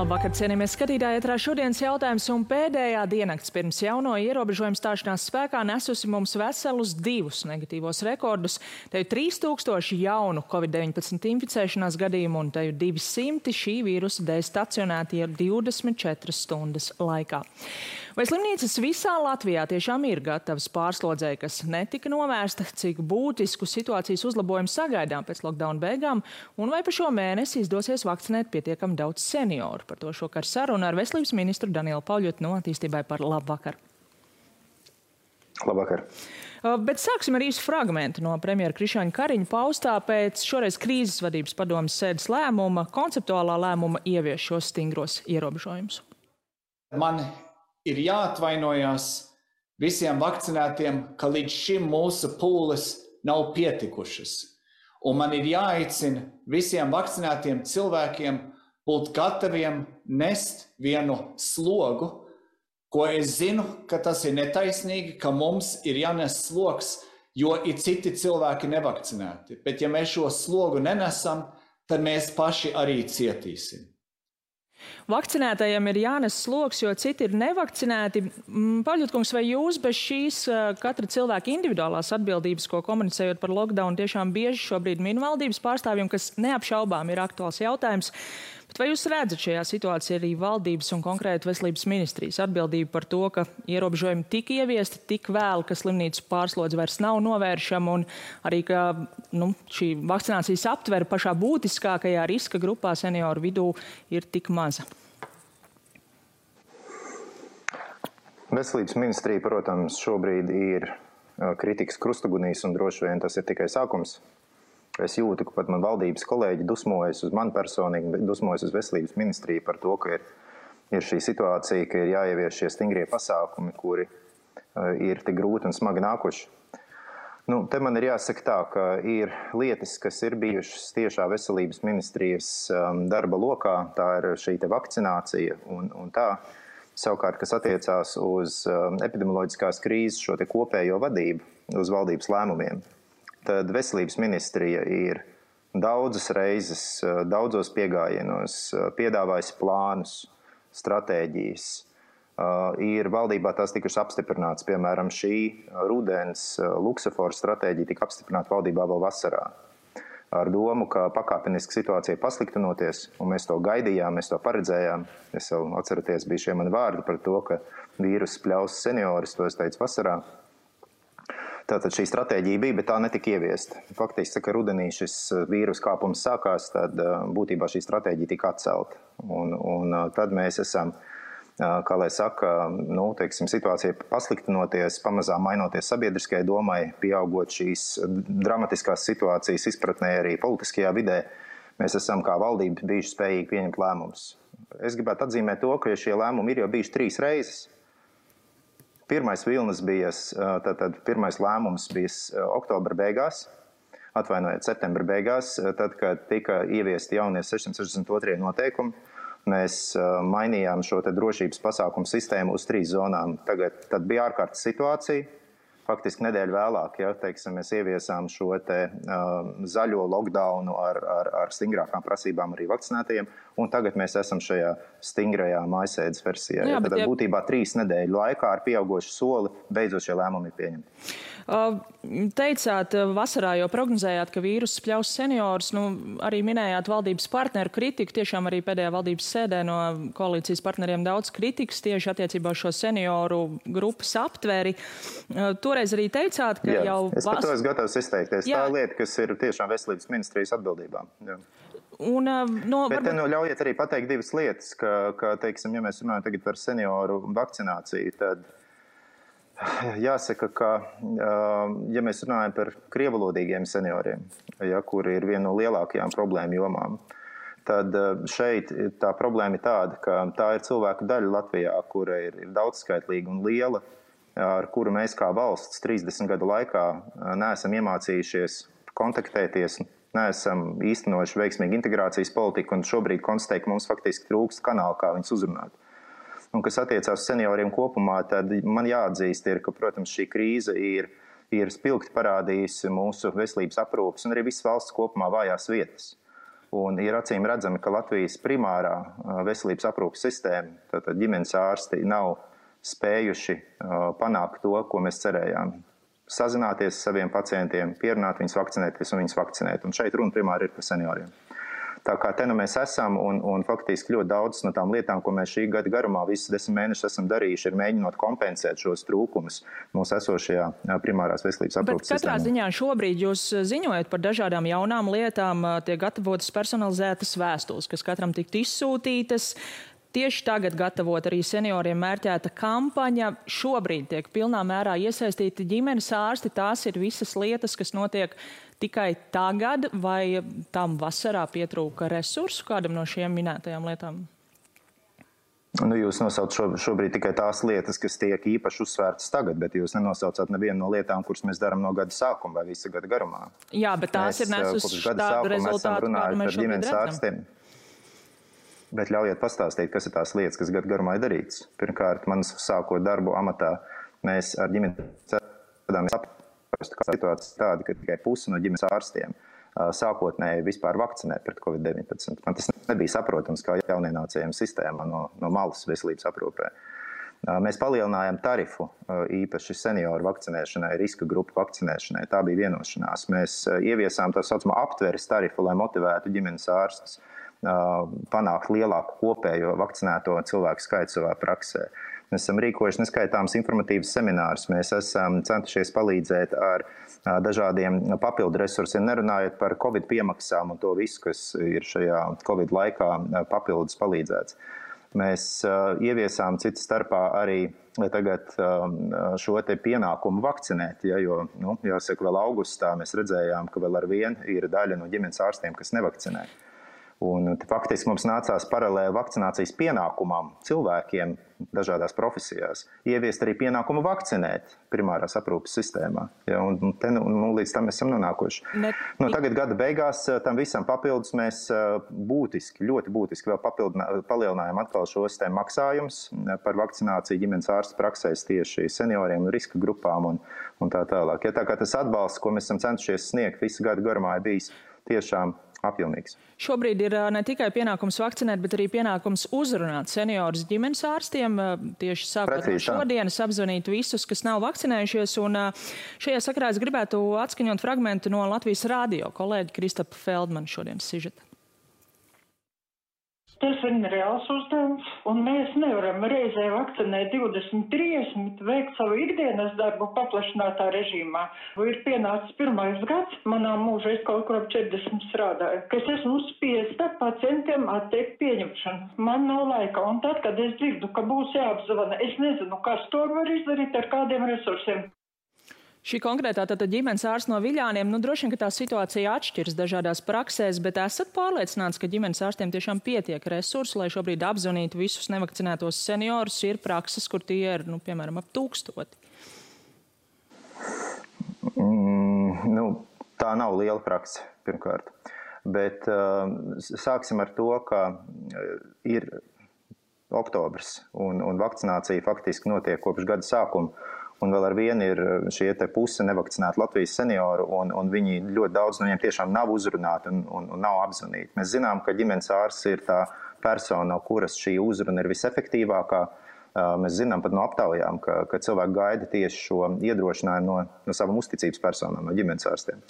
Labvakar, cienījamies skatītāji, ētrā šodienas jautājums un pēdējā diennakts pirms jauno ierobežojumu stāšanās spēkā nesusi mums veselus 2 negatīvos rekordus. Te ir 3000 jaunu Covid-19 inficēšanās gadījumu un te ir 200 šī vīrusa dēļ stacionēti 24 stundas laikā. Vai slimnīcas visā Latvijā tiešām ir gatavas pārslodzei, kas netika novērsta, cik būtisku situācijas uzlabojumu sagaidām pēc lockdown beigām, un vai pa šo mēnesi izdosies vakcinēt pietiekami daudz senioru? Par to šokar saruna ar veselības ministru Danielu Pauļotu no Attīstībai par labvakar. Labvakar. Bet sāksim ar īsu fragmentu no premjera Krišjāņa Kariņa paustā pēc šoreiz krīzes vadības padomes sēdes lēmuma, konceptuālā lēmuma ievieš šos stingros ierobežojumus. Man ir jāatvainojas visiem vakcinētiem, ka līdz šim mūsu pūles nav pietikušas. Un man ir jāaicina visiem vakcinētiem cilvēkiem būt gataviem nest vienu slogu, ko es zinu, ka tas ir netaisnīgi, ka mums ir jānes sloks, jo ir citi cilvēki nevakcinēti. Bet ja mēs šo slogu nenesam, tad mēs paši arī cietīsim. Vakcinētajiem ir jānes sloks, jo citi ir nevakcinēti. Pauļotkungs, vai jūs bez šīs katra cilvēka individuālās atbildības, ko komunicējot par lockdown, tiešām bieži šobrīd min valdības pārstāvjiem, kas neapšaubām ir aktuāls jautājums? Bet vai jūs redzat šajā situācijā arī valdības un konkrēti veselības ministrijas atbildību par to, ka ierobežojumi tika ieviesti tik vēl, ka slimnīcu pārslodze vairs nav novēršama un arī, ka šī vakcinācijas aptvere pašā būtiskākajā riska grupā senioru vidū ir tik maza? Veselības ministrija, protams, šobrīd ir kritikas krustugunīs un droši vien tas ir tikai sākums. Es jūtu, ka pat man valdības kolēģi dusmojas uz mani personīgi, dusmojas uz veselības ministriju par to, ka ir šī situācija, ka ir jāievieš šie stingrie pasākumi, kuri ir tik grūti un smagi nākuši. Te man ir jāsaka tā, ka ir lietas, kas ir bijušas tiešā veselības ministrijas darba lokā, tā ir šī te vakcinācija un tā. Savukārt, kas attiecās uz epidemioloģiskās krīzes šo te kopējo vadību, uz valdības lēmumiem, tad veselības ministrija ir daudzas reizes, daudzos piegājienos piedāvājusi plānus, stratēģijas. Ir valdībā tās tikušas apstiprināts, piemēram, šī rudens Luksemburgas stratēģija tika apstiprināta valdībā vēl vasarā. Ar domu, ka pakāpeniski situācija pasliktinoties, un mēs to gaidījām, mēs to paredzējām. Es jau atceraties, bija šie mani vārdi par to, ka vīrus pļaus seniorus, to es teicu vasarā. Tātad šī stratēģija bija, bet tā netika ieviesta. Faktiski, ka rudenī šis vīrus kāpums sākās, tad būtībā šī stratēģija tika atcelta. Un tad mēs esam, kā lai saka, situācija pasliktinoties, pamazām mainoties sabiedriskajai domai, pieaugot šīs dramatiskās situācijas izpratnē arī politiskajā vidē, mēs esam kā valdība bijuši spējīgi pieņemt lēmumus. Es gribētu atzīmēt to, ka šie lēmumi ir jau bijuši 3 reizes. Pirmais vilnis bija, tātad pirmais lēmums bija oktobra beigās, septembra beigās, tad, kad tika ieviesti jaunie 662 noteikumi. Mēs mainījām šo te drošības pasākumu sistēmu uz 3 zonām. Tad bija ārkārtas situācija. Faktiski nedēļu vēlāk, mēs ieviesām šo te zaļo lockdownu ar stingrākām prasībām arī vakcinētajiem, un tagad mēs esam šajā stingrajā mājasēdes versijā. Tad būtībā 3 nedēļu laikā ar pieaugošu soli beidzot šie lēmumi ir pieņemti. Teicāt, vasarā jau prognozējāt, ka vīruss pļaus seniorus, arī minējāt valdības partneru kritiku, tiešām arī pēdējā valdības sēdē no koalīcijas partneriem daudz kritikas tieši attiecībā uz šo senioru grupas aptveri. Toreiz arī teicāt, ka jau... Es par to esmu gatavs izteikties. Tā lieta, kas ir tiešām veselības ministrijas atbildībā. Bet te ļaujiet arī pateikt 2 lietas, ka ja mēs runājam tagad par senioru vakcināciju, tad jāsaka, ka, ja mēs runājam par krievalodīgiem senioriem, kuri ir viena no lielākajām problēmu jomām, tad šeit tā problēma ir tāda, ka tā ir cilvēku daļa Latvijā, kura ir daudzskaitlīga un liela, ar kuru mēs kā valsts 30 gadu laikā neesam iemācījušies kontaktēties, neesam īstenojuši veiksmīgu integrācijas politiku un šobrīd konstatēju, ka mums faktiski trūkst kanāla, kā viņus uzrunāt. Un kas attiecās senioriem kopumā, tad man jāatzīst, ka, protams, šī krīze ir spilgti parādījusi mūsu veselības aprūpes un arī visas valsts kopumā vājās vietas. Un ir acīm redzami, ka Latvijas primārā veselības aprūpes sistēma, tātad ģimenes ārsti, nav spējuši panākt to, ko mēs cerējām. Sazināties ar saviem pacientiem, pierunāt viņus vakcinēties un viņus vakcinēt. Un šeit runa primāri ir par senioriem. Tā kā te nu mēs esam un faktiski ļoti daudz no tām lietām, ko mēs šī gada garumā visus 10 mēnešus esam darījuši, ir mēģinot kompensēt šos trūkumus mūsu esošajā primārās veselības aprūpes sistēmā. Bet katrā ziņā šobrīd jūs ziņojat par dažādām jaunām lietām, tiek gatavotas personalizētas vēstules, kas katram tiktu izsūtītas. Tieši tagad gatavot arī senioriem mērķēta kampaņa. Šobrīd tiek pilnā mērā iesaistīti ģimenes ārsti. Tās ir visas lietas, kas notiek tikai tagad, vai tam vasarā pietrūka resursu kādam no šiem minētajām lietām? Nu, jūs nosaucat šobrīd tikai tās lietas, kas tiek īpaši uzsvērtas tagad, bet jūs nenosaucat nevienu no lietām, kuras mēs darām no gada sākuma vai visa gada garumā. Jā, bet tās ir nesusi tādu rezultātu, kādu mēs šobrīd redzam. Bet ļaujiet pastāstīt, kas ir tās lietas, kas gadu garumā ir darītas. Pirmkārt, man sākot darbu amatā, mēs ar ģimenes ārstiem saprastu, ka situācija tāda, ka tikai pusi no ģimenes ārstiem sākotnēji vispār vakcinē pret Covid-19. Man tas nebija saprotams kā jaunienācējiem sistēmā no malas veselības aprūpē. Mēs palielinājām tarifu īpaši senioru vakcinēšanai, riska grupu vakcinēšanai. Tā bija vienošanās. Mēs ieviesām tā saucamo aptveres tarifu, lai motivētu ģimenes ārstus panākt lielāku kopējo vakcinēto cilvēku skaitu savā praksē. Mēs esam rīkojuši neskaitāms informatīvas seminārus. Mēs esam centušies palīdzēt ar dažādiem papildu resursiem, nerunājot par Covid piemaksām un to visu, kas ir šajā Covid laikā papildus palīdzēts. Mēs ieviesām citas starpā arī tagad šo te pienākumu vakcinēt, jo, jāsaka, vēl augustā mēs redzējām, ka vēl ar vienu ir daļa no ģimenes ārstiem, kas nevakcinē. Un faktiski mums nācās paralēli vakcinācijas pienākumam cilvēkiem dažādās profesijās ieviest arī pienākumu vakcinēt primārās aprūpes sistēmā. Ja, un te, līdz tam esam nonākuši. Tagad gada beigās tam visam papildus mēs ļoti būtiski vēl palielinājām atkal šos te maksājumus par vakcināciju ģimenes ārstu praksēs tieši senioriem un riska grupām un tā tālāk. Ja, tā kā tas atbalsts, ko mēs esam centušies sniegt visu gadu garumā, ir bijis tiešām apjomīgs. Šobrīd ir ne tikai pienākums vakcinēt, bet arī pienākums uzrunāt seniorus ģimenes ārstiem. Tieši sākot no šodienas apzvanīt visus, kas nav vakcinējušies. Un šajā sakarā es gribētu atskaņot fragmentu no Latvijas radio kolēģa Kristapa Feldmana šodienas sižeta. Tas ir reāls uzdevums, un mēs nevaram reizē vakcinēt 20-30, veikt savu ikdienas darbu paplašinātā režīmā. Ir pienācis 1. gads, manā mūžā es kaut kur ap 40 strādāju, ka es esmu spiesta pacientiem atteikt pieņemšanu. Man nav laika, un tad, kad es dzirdu, ka būs jāapzvana, es nezinu, kas to var izdarīt ar kādiem resursiem. Šī konkrētā tātad ģimenes ārsts no Viļāniem, droši vien, ka tā situācija atšķiras dažādās praksēs, bet esat pārliecināts, ka ģimenes ārstiem tiešām pietiek resursu, lai šobrīd apzvanītu visus nevakcinētos seniorus, ir prakses, kur tie ir, piemēram, ap 1000? Tā nav liela prakse, pirmkārt. Bet sāksim ar to, ka ir oktobrs un vakcinācija faktiski notiek kopš gada sākuma. Un vēl ar vienu ir šie te puse nevakcinēti Latvijas senioru, un viņi ļoti daudz no viņiem tiešām nav uzrunāti un nav apzvanīti. Mēs zinām, ka ģimenes ārsts ir tā persona, no kuras šī uzruna ir visefektīvākā. Mēs zinām pat no aptaujām, ka cilvēki gaida tieši šo iedrošinājumu no savām uzticības personām, no ģimenes ārstiem.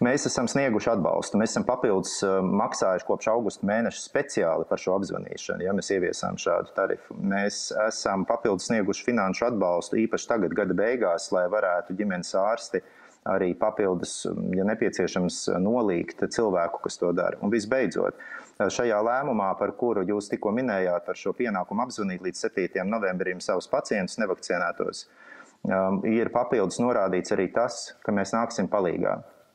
Mēs esam snieguši atbalstu. Mēs esam papildus maksājuši kopš augusta mēneša speciāli par šo apzvanīšanu, ja mēs ieviesām šādu tarifu. Mēs esam papildus snieguši finanšu atbalstu īpaši tagad gada beigās, lai varētu ģimenes ārsti arī papildus, ja nepieciešams, nolīgt cilvēku, kas to dara. Un visbeidzot, šajā lēmumā, par kuru jūs tikko minējāt, par šo pienākumu apzvanīt līdz 7. novembrim savus pacientus nevakcinētos, ir papildus norādīts arī tas, ka mēs nāksim palīgā.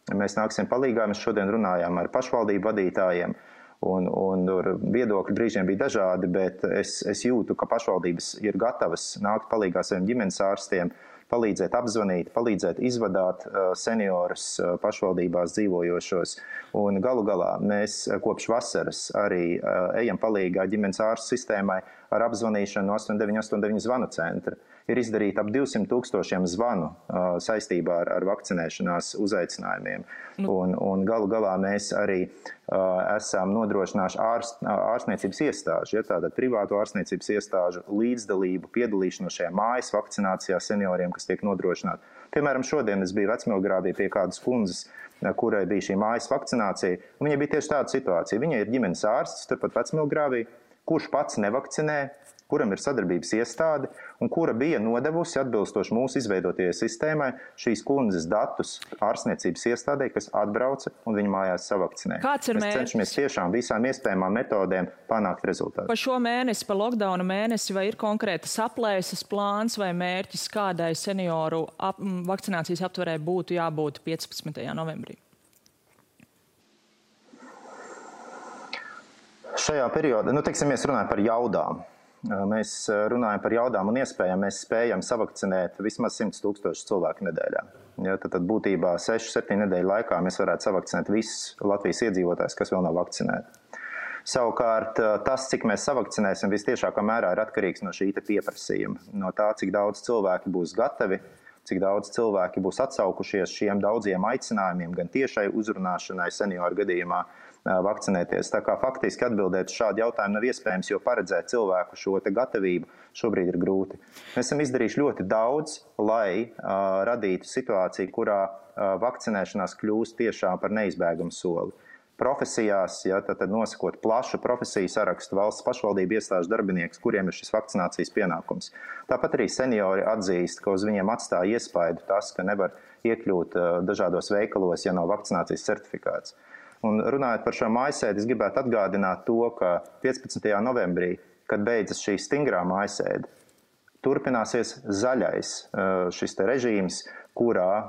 Mēs nāksim palīgā, mēs šodien runājām ar pašvaldību vadītājiem, un viedokļi brīžiem bija dažādi, bet es jūtu, ka pašvaldības ir gatavas nākt palīgā saviem ģimenes ārstiem, palīdzēt apzvanīt, palīdzēt izvadāt seniorus pašvaldībās dzīvojošos. Un galu galā mēs kopš vasaras arī ejam palīgā ģimenes ārstu sistēmai ar apzvanīšanu no 8989 zvanu centra. Ir izdarīti ap 200 000 zvanu saistībā ar vakcinēšanās uzaicinājumiem. Un galu galā mēs arī esam nodrošinājuši ārstniecības iestāžu, tātad privātu ārstniecības iestāžu līdzdalību, piedalīšanos šajā mājas vakcinācijā senioriem, kas tiek nodrošināti. Piemēram, šodien es biju Vecmilgrāvī pie kādas kundzes, kurai bija šī mājas vakcinācija, un viņai bija tieši tāda situācija. Viņa ir ģimenes ārsts, turpat Vecmilgrāvī, kurš pats nevakcinē, kuram ir sadarbības iestāde un kura bija nodevusi atbilstoši mūsu izveidotajai sistēmai šīs kundzes datus ārstniecības iestādē, kas atbrauca un viņu mājās savakcinē. Kāds ir mērķis? Mēs cenšamies tiešām visām iespējamām metodēm panākt rezultātu. Pa šo mēnesi, pa lockdowna mēnesi, vai ir konkrētas aplēses plāns vai mērķis, kādai senioru vakcinācijas aptverē būtu jābūt 15. novembrī? Šajā periodā, mēs runājam par jaudām. Mēs runājam par jaudām un iespējām. Mēs spējam savakcinēt vismaz 100 000 cilvēku nedēļā. Tad būtībā 6-7 nedēļu laikā mēs varētu savakcinēt visus Latvijas iedzīvotājus, kas vēl nav vakcinēti. Savukārt tas, cik mēs savakcinēsim, vistiešākā mērā ir atkarīgs no šī pieprasījuma. No tā, cik daudz cilvēki būs gatavi, cik daudz cilvēki būs atsaukušies šiem daudziem aicinājumiem, gan tiešai uzrunāšanai senioru gadījumā, vakcinēties. Tā kā faktiski atbildēt uz šādu jautājumu nav iespējams, jo paredzēt cilvēku šo te gatavību šobrīd ir grūti. Mēs esam izdarījuši ļoti daudz, lai radītu situāciju, kurā vakcinēšanās kļūst tiešām par neizbēgamu soli. Profesijās, tad nosakot plašu profesiju sarakstu, valsts pašvaldību iestāžu darbinieks, kuriem ir šis vakcinācijas pienākums. Tāpat arī seniori atzīst, ka uz viņiem atstāja iespaidu tas, ka nevar iekļūt dažādos veikalos, ja nav vakcinācijas certifikāts. Un runājot par šo mājasēdi, es gribētu atgādināt to, ka 15. novembrī, kad beidzas šī stingrā mājasēde, turpināsies zaļais šis te režīms, kurā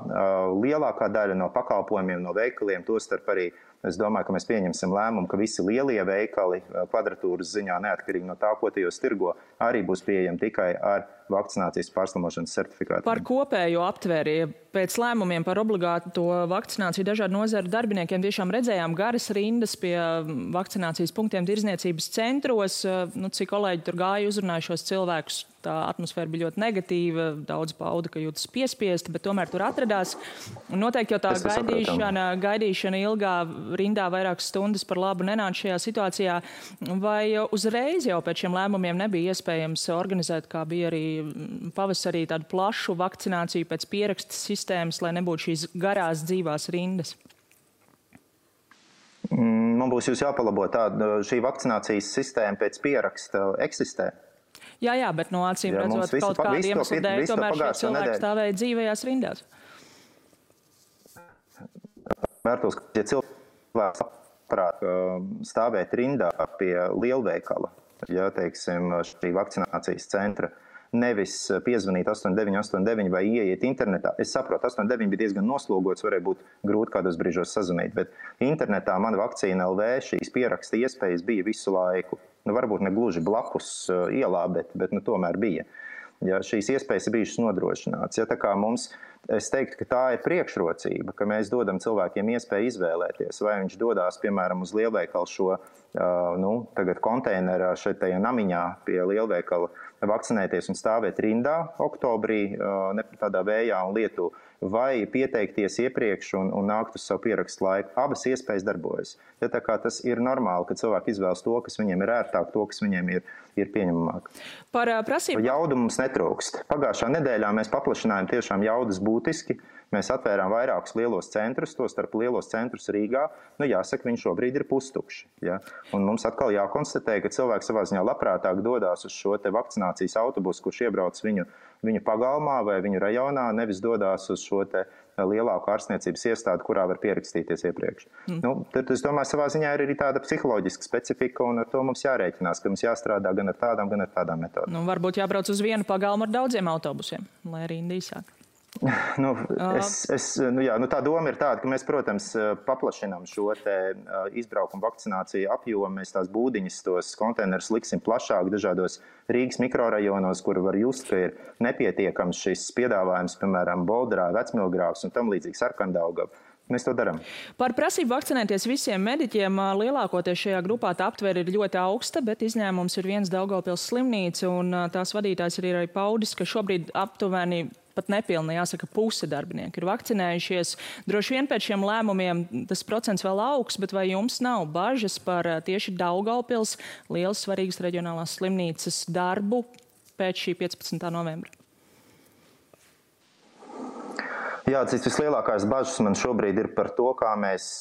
lielākā daļa no pakalpojumiem, no veikaliem, tostarp arī, es domāju, ka mēs pieņemsim lēmumu, ka visi lielie veikali kvadratūras ziņā, neatkarīgi no tā, ko tajos tirgo, arī būs pieejami tikai ar vakcinācijas pārslimošanas certifikātu. Par kopējo aptvēri, pēc lēmumiem par obligāto vakcināciju dažādu nozaru darbiniekiem tiešām redzējām garas rindas pie vakcinācijas punktiem tirzniecības centros. Cik kolēģi tur gāja, uzrunāja šos cilvēkus, tā atmosfēra bija ļoti negatīva, daudz pauda, ka jūtas piespiesti, bet tomēr tur atradās. Un noteikti jau tā gaidīšana ilgā rindā vairākas stundas par labu nenāca šajā situācijā. Vai uzreiz jau pēc šiem lēmumiem nebija iespējams organizēt, kā bija arī pavasarī, tādu plašu vakcināciju pēc pieraksta sistēmas, lai nebūtu šīs garās dzīvās rindas? Man būs jūs jāpalabo šī vakcinācijas sistēma pēc pieraksta eksistē. Jā, bet no acīm redzot kaut kādu iemeslu dēļ, tomēr šie cilvēki stāvēja dzīvajās rindās. Vērtos, ka ja cilvēks labprāt stāvēt rindā pie lielveikala, šī vakcinācijas centra, nevis piezvanīt 8989 vai ieiet internetā. Es saprotu, 89 bija diezgan noslogots, varēja būt grūti kādos brīžos sazvanīt, bet internetā Mana vakcīna LV šīs pieraksta iespējas bija visu laiku. Varbūt ne gluži blakus ielā, bet tomēr bija. Šīs iespējas ir bijušas nodrošināts. Tā kā es teiktu, ka tā ir priekšrocība, ka mēs dodam cilvēkiem iespēju izvēlēties, vai viņš dodās, piemēram, uz lielveikalu šo tagad konteinerā šeit tajā namiņā pie lielveikala vakcinēties un stāvēt rindā oktobrī, tādā vējā un lietu, vai pieteikties iepriekš un nākt uz savu pierakstu laiku. Abas iespējas darbojas. Tā kā tas ir normāli, ka cilvēki izvēlas to, kas viņiem ir ērtāk, to, kas viņiem ir pieņemamāk. Par prasību. Jaudu mums netrūkst. Pagājušā nedēļā mēs paplašinājām tiešām jaudas būtiski. Mēs atvērām vairākus lielos centrus, tostarp lielos centrus Rīgā. Jāsaka, viņi šobrīd ir pustukši. Un mums atkal jākonstatē, ka cilvēki savā ziņā labprātāk dodās uz šo te vakcinācijas autobusu, kurš iebrauc viņu pagalmā vai viņu rajonā, nevis dodās uz šo te lielāku ārstniecības iestādi, kurā var pierakstīties iepriekš. Tad, es domāju, savā ziņā ir arī tāda psiholoģiska specifika, un ar to mums jārēķinās, ka mums jāstrādā gan ar tādām metodēm. Varbūt jābrauc uz vienu pagalmu ar daudziem autobusiem, lai arī īsāk. Tā doma ir tāda, ka mēs, protams, paplašinām šo te izbraukumu vakcināciju apjomu. Mēs tās būdiņas, tos konteinerus liksim plašāk dažādos Rīgas mikrorajonos, kur var just, ka ir nepietiekams šis piedāvājums, piemēram, Boldrā, Vecmilgrāvs un tam līdzīgi Sarkandaugava. Mēs to darām. Par prasību vakcinēties visiem mediķiem lielākoties šajā grupā tā aptvere ir ļoti augsta, bet izņēmums ir viens Daugavpils slimnīca, un tās vadītājs ir arī paudis, ka šobrīd aptuveni pat nepilni, jāsaka, puse darbinieku ir vakcinējušies. Droši vien pēc šiem lēmumiem tas procents vēl augs, bet vai jums nav bažas par tieši Daugavpils lielas svarīgas reģionālās slimnīcas darbu pēc šī 15. novembra? Jā, cits vislielākās bažas man šobrīd ir par to, kā mēs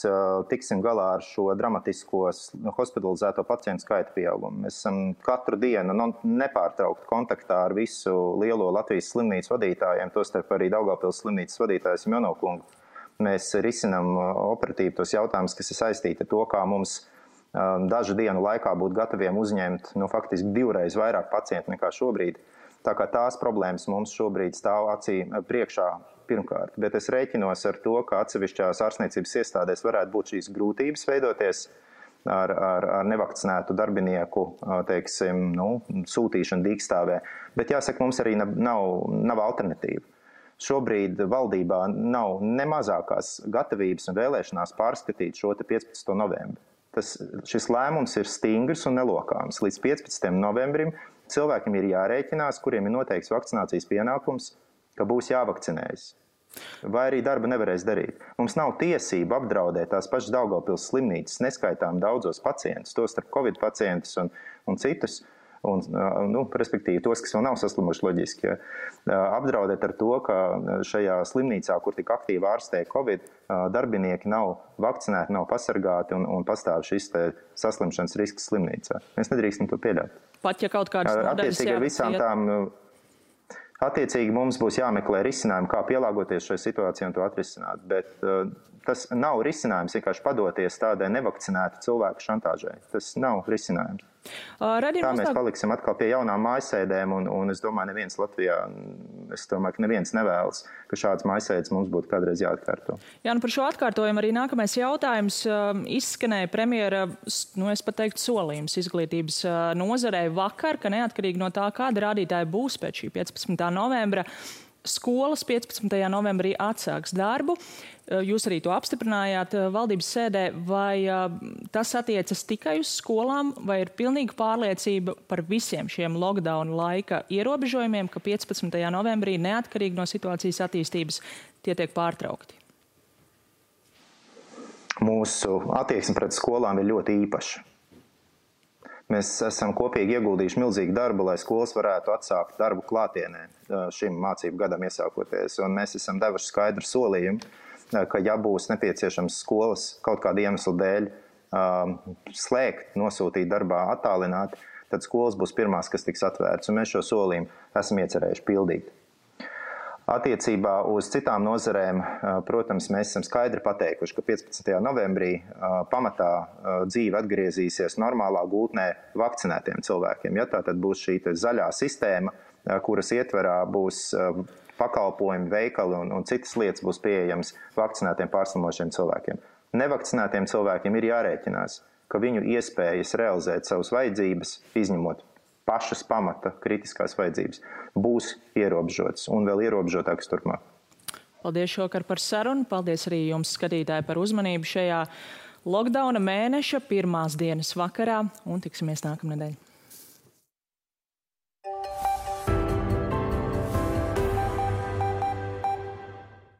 tiksim galā ar šo dramatisko hospitalizēto pacientu skaita pieaugumu. Mēs esam katru dienu nepārtraukti kontaktā ar visu lielo Latvijas slimnīcu vadītājiem, tostarp arī Daugavpils slimnīcas vadītājs Jonokungu. Mēs risinām operatīvi tos jautājumus, kas ir saistīti ar to, kā mums dažu dienu laikā būt gataviem uzņemt faktiski 2 reizes vairāk pacientu nekā šobrīd. Tā kā tās problēmas mums šobrīd stāv acī priekšā pirmkārt, bet es rēķinos ar to, ka atsevišķās ārstniecības iestādēs varētu būt šīs grūtības veidoties ar nevakcinētu darbinieku, teiksim, sūtīšanu dīkstāvē. Bet jāsaka, mums arī nav alternatīva. Šobrīd valdībā nav ne mazākās gatavības un vēlēšanās pārskatīt šo 15. novembri. Šis lēmums ir stingrs un nelokāms. Līdz 15. novembrim cilvēkiem ir jārēķinās, kuriem ir noteikts vakcinācijas pienākums, ka būs jāvakcinējas. Vai arī darba nevarēs darīt. Mums nav tiesība apdraudēt tās pašas Daugavpils slimnīcas neskaitām daudzos pacientus, tostarp Covid pacientus un citus, respektīvi tos, kas vēl nav saslimuši loģiski. Apdraudēt ar to, ka šajā slimnīcā, kur tik aktīvi ārstē Covid, darbinieki nav vakcinēti, nav pasargāti un pastāv šis saslimšanas risks slimnīcā. Mēs nedrīkstam to pieļaut. Pat ja kaut kādas nodaļas jāvakcinēt. Attiecīgi mums būs jāmeklē risinājumi, kā pielāgoties šai situācijai un to atrisināt, bet tas nav risinājums vienkārši padoties tādai nevakcinētu cilvēku šantāžai. Tas nav risinājums. Tā mēs paliksim atkal pie jaunām mājasēdēm, un es domāju, neviens Latvijā, ka neviens nevēlas, ka šāds mājasēdes mums būtu kādreiz jāatkārto. Jā, par šo atkārtojumu arī nākamais jautājums izskanēja premjera, es pat teiktu, solījums izglītības nozarei vakar, ka neatkarīgi no tā, kāda rādītāja būs pēc šī 15. novembra, skolas 15. novembrī atsāks darbu. Jūs arī to apstiprinājāt valdības sēdē. Vai tas attiecas tikai uz skolām, vai ir pilnīga pārliecība par visiem šiem lockdown laika ierobežojumiem, ka 15. novembrī neatkarīgi no situācijas attīstības tie tiek pārtraukti? Mūsu attieksme pret skolām ir ļoti īpaša. Mēs esam kopīgi ieguldījuši milzīgu darbu, lai skolas varētu atsākt darbu klātienē šim mācību gadam iesākoties. Un mēs esam devuši skaidru solījumu, ka ja būs nepieciešams skolas kaut kāda iemesla dēļ slēgt, nosūtīt darbā attālināti, tad skolas būs pirmās, kas tiks atvērts. Un mēs šo solījumu esam iecerējuši pildīt. Attiecībā uz citām nozarēm, protams, mēs esam skaidri pateikuši, ka 15. novembrī pamatā dzīve atgriezīsies normālā gultnē vakcinētiem cilvēkiem. Ja, tā tad būs šī zaļā sistēma, kuras ietverā būs pakalpojumi, veikali un citas lietas būs pieejams vakcinētiem pārslimošiem cilvēkiem. Nevakcinētiem cilvēkiem ir jārēķinās, ka viņu iespējas realizēt savas vajadzības, izņemot pašas pamata kritiskās vajadzības, būs ierobežotas un vēl ierobežotākas turpmāk. Paldies šovakar par sarunu. Paldies arī jums, skatītāji, par uzmanību šajā lockdowna mēneša pirmās dienas vakarā un tiksimies nākamnedēļ.